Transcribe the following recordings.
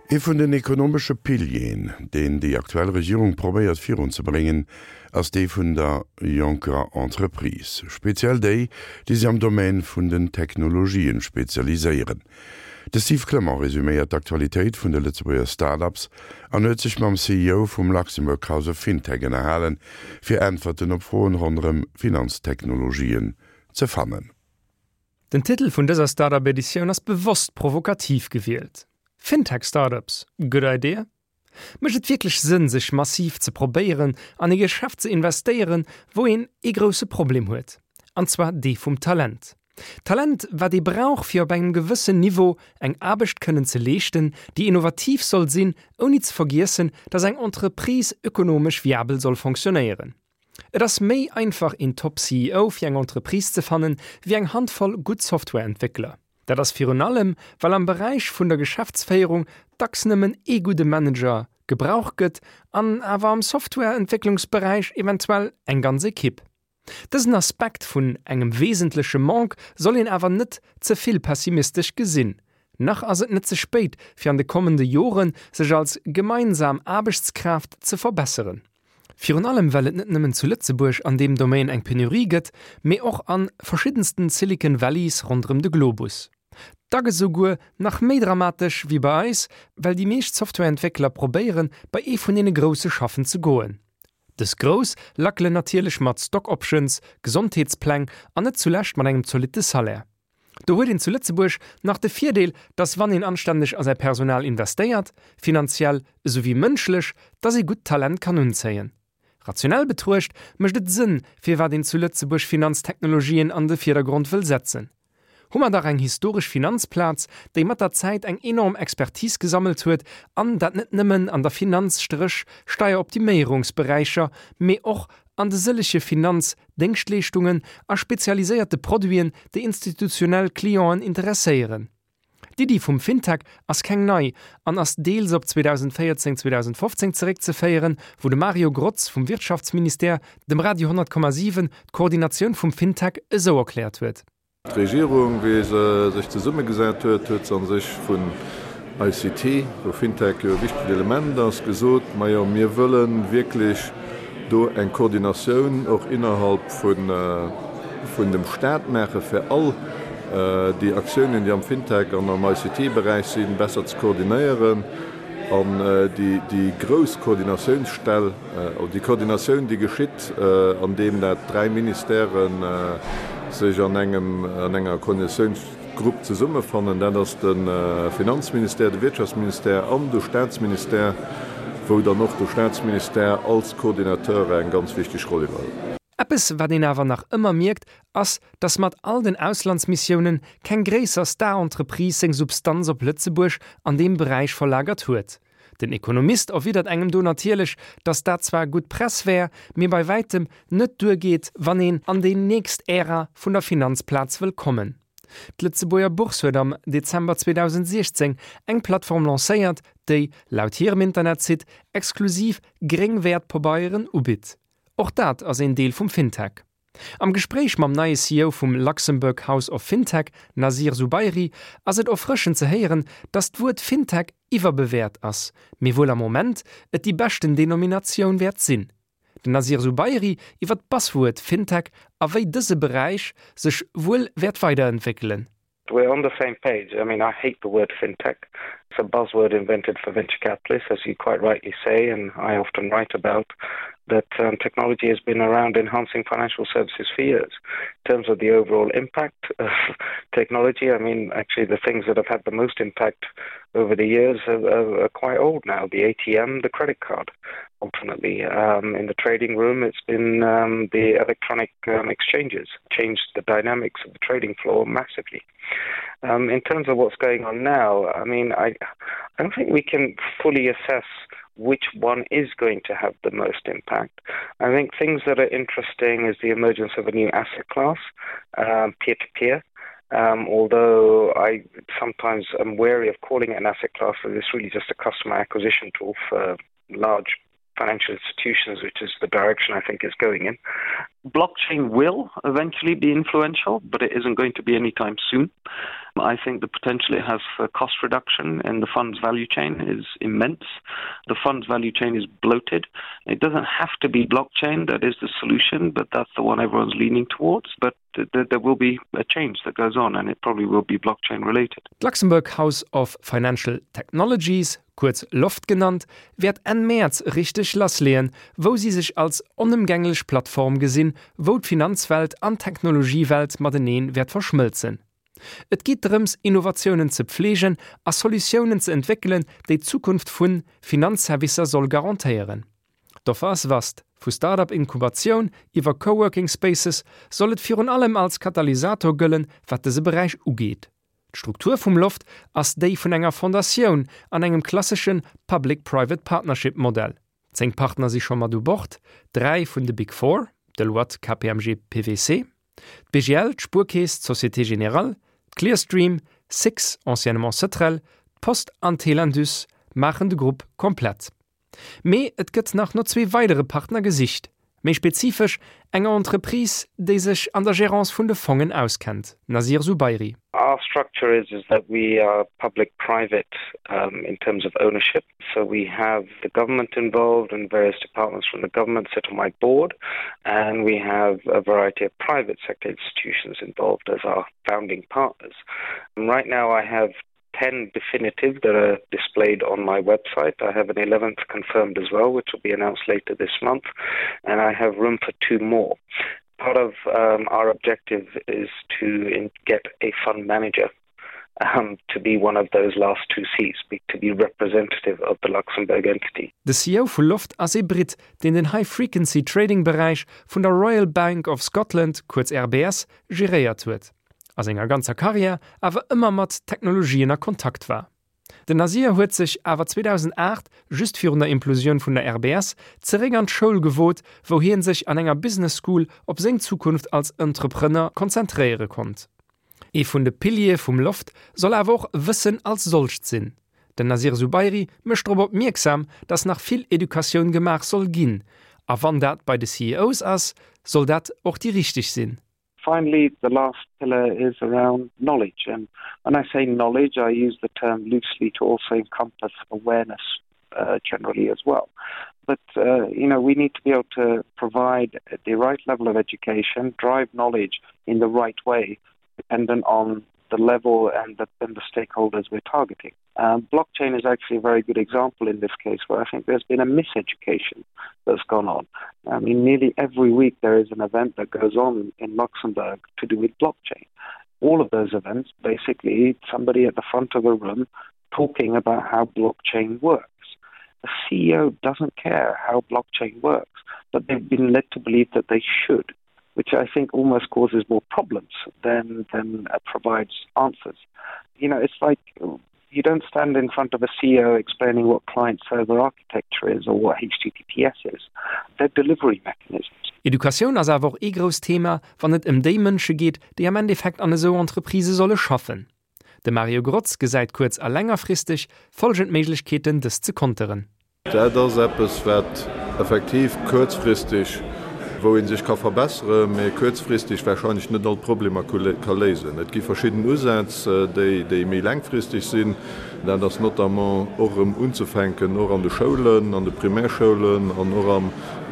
Ee vun den ekonomesche Pilieren, deen déi aktuell Regierung probéiert virunzebréngen, ass dee vun der jonker Entreprise, speziell déi, déi sech am Domaine vun den Technologien spezialiséieren. De Steve Clement resuméiert d'Aktualitéit vun de Lëtzebuerger Start-ups an huet sech mam CEO vum Luxembourg House of Fintech ënnerhalen, fir Äntwerten op Froen ronderëm Finanztechnologien ze fannen. Den Titel vun dëser Startup Editioun ass bewosst provokativ gewielt, Fintech Startups, good idea? Mécht et wierklech Sënn sech massiv ze probéieren an ee Geschäft ze investéieren, wou een ee grousse Problem huet, an zwar dee vum Talent? Talent wat ee brauch fir op engem gewëssen Niveau eng Aarbecht kënnen ze leeschten, déi innovativ soll sinn, ouni ze vergiessen, dass eng Entreprise ökonomesch viabel soll fonctionnéieren. Et ass méi einfach een Top CEO fir eng Entreprise ze fannen, wéi eng Handvoll gutt Softwareentwéckler. Dat ass virun allem, well am Beräich vun der Geschäftsféierung dacks nëmmen ee gudde Manager gebraucht gëtt an awer am Softwareentwécklungsberäich eventuell eng ganz Ekipp. Dësen Aspekt vun engem wesentleche Manque soll een awer net ze vill pessimistesch gesinn. Nach ass et net ze spéit fir an de kommende Jore sech als gemeinsam Aarbechtskraaft ze verbesseren. Virun allem well et net nëmmen zu Lëtzebuerg an deem Domaine eng Penurie gëtt, mee och an verschiddensten Silicon Valleys ronderëm de Globus. Dack esouguer nach méi dramatesch wéi bei eis, well déi meescht Softwareentwéckler probéieren bei ee vun deene Grousse schaffen ze goen. Dës Grouss lackelen natierlech mat Stock Options, Gesondheetspläng an net zulescht mat engem zolitte Salaire. Do huet een zu Lëtzebuerg nach de Virdeel, dass wann een anstänneg a säi Personal investéiert, finanziell esou wéi mënschlech, dass ee gutt Talent kann unzéien. Rationell betruecht mécht et Sënn, firwat een zu Lëtzebuerg Finanztechnologien an de Virdergrond wëll setzen. Hu mer dach eng historesch Finanzplaz, déi mat der Zäit eng enorm Expertise gesammelt huet, an dat net nëmmen an der Finanz-Steieroptiméierungsberäicher, mee och an de sëllege Finanz Déngschtleeschtungen a spezialiséierte Produiten, déi institutionell Clienten interesséieren. D'Iddi vum FinTech ass keng nei an ass deels op 2014, 2015 zeréckzeféieren, wou de Mario Grotz vum Wirtschaftsministère dem Radio 100,7 d'Koordinatioun vum FinTech esou erkläert huet. D'Regierung, wéi se sech zesummegesat huet, huet se a sech vun ICT, wou FinTech jo e wichtegt Element ass, gesot, Majo, mir wëlle wierklech do eng Koordinatioun och innerhalb vun dem Stat maachen, fir all déi Aktiounen, déi am FinTech an am ICT-Beräich sinn, besser ze koordinéieren. An déi grouss Koordinatiounsstell, oder déi Koordinatioun, déi geschitt, andeem dat dräi Ministèrë sech an engem, an enger Koordinatiounsgrupp zesummefannen, dat ass de Finanzministère, de Wirtschaftsministère an de Statsministère, wou dann och de Statsministère als Coordinateur eng ganz wichteg Roll iwwerhëlt. Eppes, wat een awer nach ëmmer mierkt, ass, dass mat all den Auslandsmissiounen keng gréisser Star-Entreprise seng Substanz op Lëtzebuerg an deem Beräich verlagert huet. Den Ekonomist erwidert engem do natierlech, dass dat zwar gutt Press wär, mee bei wäitem net duergeet, wann een an déi nächst Ära vun der Finanzplaz wëll kommen. D'Lëtzebuerger Bourse huet am Dezember 2016 eng Plattform lancéiert, déi, laut hirem Internetsite, exklusiv gréng Wäertpabeieren ubitt. Och dat ass een Deel vum FinTech. Am Gespréich mam neie CEO vum Luxembourg House of FinTech, Nasir Zubairi, ass et erfrëschend ze héieren, datt d'Wuert FinTech iwwerbewäert ass, mee wuel am Moment et déi beschten Denominatioun wäert sinn. Den Nasir Zubairi iwwer d'Buzzword FinTech a wéi dëse Beräich sech wuel wäert weiderentwéckelen. We're on the same page. I mean, I hate the word fintech. It's a buzzword invented for venture capitalists, as you quite rightly say, and I often write about that um, technology has been around enhancing financial services for years. In terms of the overall impact of technology, I mean, actually the things that have had the most impact over the years are, are, are quite old now, the ATM, the credit card. Ultimately, um, in the trading room, it's been um, the electronic um, exchanges changed the dynamics of the trading floor massively. Um, in terms of what's going on now, I mean, I, I don't think we can fully assess which one is going to have the most impact. I think things that are interesting is the emergence of a new asset class, um, peer-to-peer. -peer. Um, although I sometimes am wary of calling it an asset class, as it's really just a customer acquisition tool for large financial institutions, which is the direction I think is going in. Blockchain will eventually be influential, but it isn't going to be anytime soon. I think the potential it has for cost reduction in the fund's value chain is immense. The fund's value chain is bloated. It doesn't have to be blockchain that is the solution, but that's the one everyone's leaning towards. But there will be a change that goes on and it probably will be blockchain related. D'Luxembourg House of Financial Technologies, kuerz LOFT genannt, wäert Enn Mäerz richteg lassleeën, wou si sech als onëmgänglech Plattform gesinn, wou d'Finanzwelt an d'Technologiewelt matenee wäert verschmëlzen. Et geet drëms, Innovatiounen ze pfleegen a Solutiounen ze entwéckelen, déi d'Zukunft vu Finanzservicer soll garantéieren. D'Offer ass vast, vu Start-up-Inkubatioun iwwer Co-Working Spaces soll et virun allem als Katalysator gëllen, wat dëse Beräich ugeet. D'Struktur vum Loft ass déi vun enger Fondatioun an engem klassesche Public-Private Partnership Modell. 10 Partner si scho mat u Bord, 3 vun de Big Four, Deloitte, KPMG, PwC, d'BGL, d'Spuerkeess, d'Société Générale, d'Clearstream, Six, anciennement Cetrel, d'Post an Telindus maachen de Grupp komplett. Mee et gëtt nach no zwee weidere Partner gesicht, méi spezifesch enger Entreprise, déi sech an der Gérance vun de Fongen auskennt. Nasir Zubairi. Our structure is is that we are public private um, in terms of ownership. So we have the government involved and various departments from the government sit on my board and we have a variety of private sector institutions involved as our founding partners. And right now I have 10 definitive that are displayed on my website. I have an 11th confirmed as well, which will be announced later this month, and I have room for two more. Part of um, our objective is to in get a fund manager um, to be one of those last two seats, be, to be representative of the Luxembourg entity. De CEO vu Loft ass ee Britt, deen den High-Frequency-Trading-Beräich vun der Royal Bank of Scotland, kuerz RBS, geréiert huet. A senger ganzer Karriär awer ëmmer mat Technologien a Kontakt war. Den Nasir huet sech awer 2008, just virun der Implosioun vun der RBS, zeréck an d'Schoul gewot, wou hien sech an enger Business School op seng Zukunft als Entrepreneur konzentréiere konnt. Ee vun de Piliere vum Loft soll awer och Wëssen als solcht sinn. Den Nasir Zubairi mécht drop opmierksam, datt nach vill Educatioun gemaach soll ginn, a wann dat bei de CEOs ass, soll dat och déi richteg sinn. Finally, the last pillar is around knowledge and when I say knowledge, I use the term loosely to also encompass awareness uh, generally as well. But uh, you know, we need to be able to provide the right level of education, drive knowledge in the right way, dependent on the level and the, and the stakeholders we're targeting. Um, blockchain is actually a very good example in this case where I think there's been a miseducation that's gone on. I mean, nearly every week there is an event that goes on in Luxembourg to do with blockchain. All of those events, basically somebody at the front of a room talking about how blockchain works. The CEO doesn't care how blockchain works, but they've been led to believe that they should, which I think almost causes more problems than, than uh, provides answers. You know, it's like you don't stand in front of a CEO explaining what client server architecture is or what HTTPS is. They're delivery mechanisms. Educatioun ass awer och ee grousst Thema, wann et ëm déi Mënsche geet, déi am Endeffekt an esou Entreprisë solle schaffen. De Mario Grotz gesäit kuerz a längerfristeg folgend Méiglechkeeten, dëst ze konteren. Dat ass eppes, wat effektiv kuerzfristeg, wou ee sech ka verbesseren, mä kuerzfristeg wahrscheinlech net all d'Problemer ka léisen. Et gi verschidden Usätz, déi méi laangfristeg sinn. Dat ass notamment och erëm unzefänken, och an de Schoulen, an de Primärschoulen an och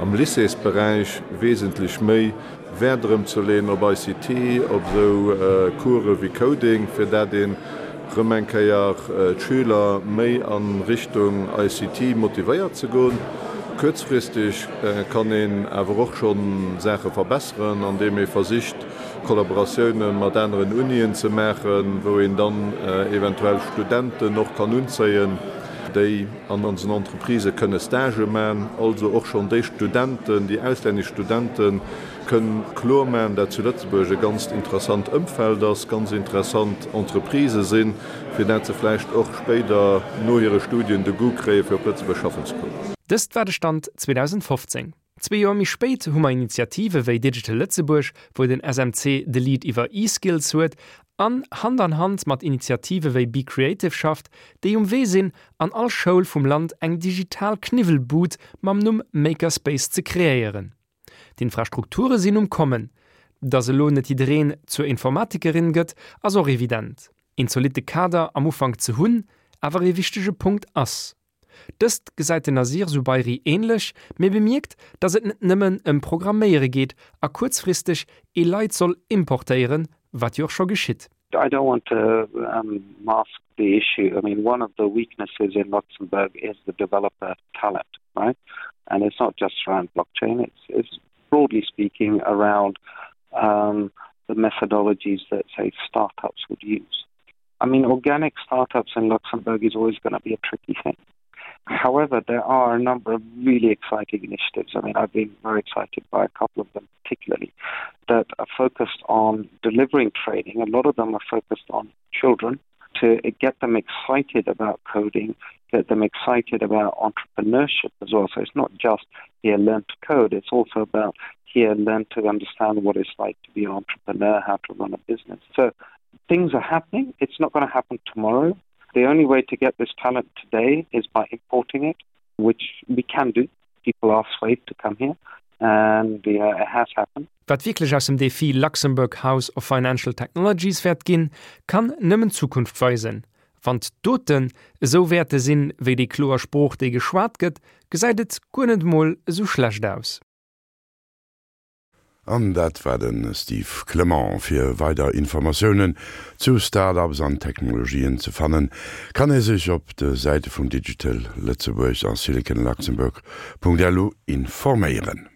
am Lycéesberäich wesentlech méi Wäert erëm ze leeën op ICT, op esou Course wéi Coding, fir dat een erëm eng Kéier d'Schüler méi a Richtung ICT motivéiert ze goen. Kuerzfristeg kann een awer och scho Saache verbesseren, andeem ee versicht Kollaboratioune mat aneren Unien ze maachen, wou een dann eventuell Studenten och kann unzéien, déi an onsen Entreprisë kënne Stagë man, also och schonn déi Studenten, déi auslännesch Studente kënn kloer man, dat zu Lëtzebuerg e ganzt interessant Ëmfeld ass, ganz interessant Entreprisë sinn, fir dat se vläicht och spéider no hire Studien de Goût kréie fir op Lëtzebuerg schaffen ze kommen. Dëst war de Stand 2015. Zwee Joer méi spéit hu mer Initiative wéi Digital Lëtzebuerg, wou den SMC de Lead iwwer E-Skills huet an Hand an Hand mat Initiative wéi Be Creative schafft, déi um Wee sinn, an all Schoul vum Land eng digital Kniwwelbud mam Numm Makerspace ze kreéieren. D'Infrastrukture sinn um Kommen. Dass elo net jiddereen zur Informatikerin gëtt, ass och evident. Een zolitte Kader am Ufank ze hunn, awer ee wichtege Punkt ass. Dëst gesäit den Nasir Zubairi änlech, mee bemierkt, datt et net nëmmen ëm Programméiere geet a kuerzfristeg ee Leit soll importéieren, wat jo och scho geschitt. I don't want to um, mask the issue. I mean, one of the weaknesses in Luxembourg is the developer talent, right? And it's not just around blockchain, it's, it's broadly speaking around um, the methodologies that, say, startups would use. I mean, organic startups in Luxembourg is always going to be a tricky thing. However, there are a number of really exciting initiatives. I mean, I've been very excited by a couple of them particularly that are focused on delivering training. A lot of them are focused on children to get them excited about coding, get them excited about entrepreneurship as well. So it's not just here learn to code, it's also about here learn to understand what it's like to be an entrepreneur, how to run a business. So things are happening. It's not going to happen tomorrow. The only way to get this talent today is by importing it, which we can do. People are swayed to come here and uh, it has happened. Wat wierklech aus dem Defi Luxembourg House of Financial Technologies wäert ginn, kann nëmmen d'Zukunft weisen. Wann d'Doten esou wäerte sinn, wéi déi kloer Sprooch, déi geschwat gëtt, gesäit et guer net emol esou schlecht aus. An dat war de Steve Clement. Fir weider Informatiounen zu Start-ups an Technologien ze fannen, kann ee sech op de Säite vum Digital Lëtzebuerg a siliconluxembourg.lu informéieren.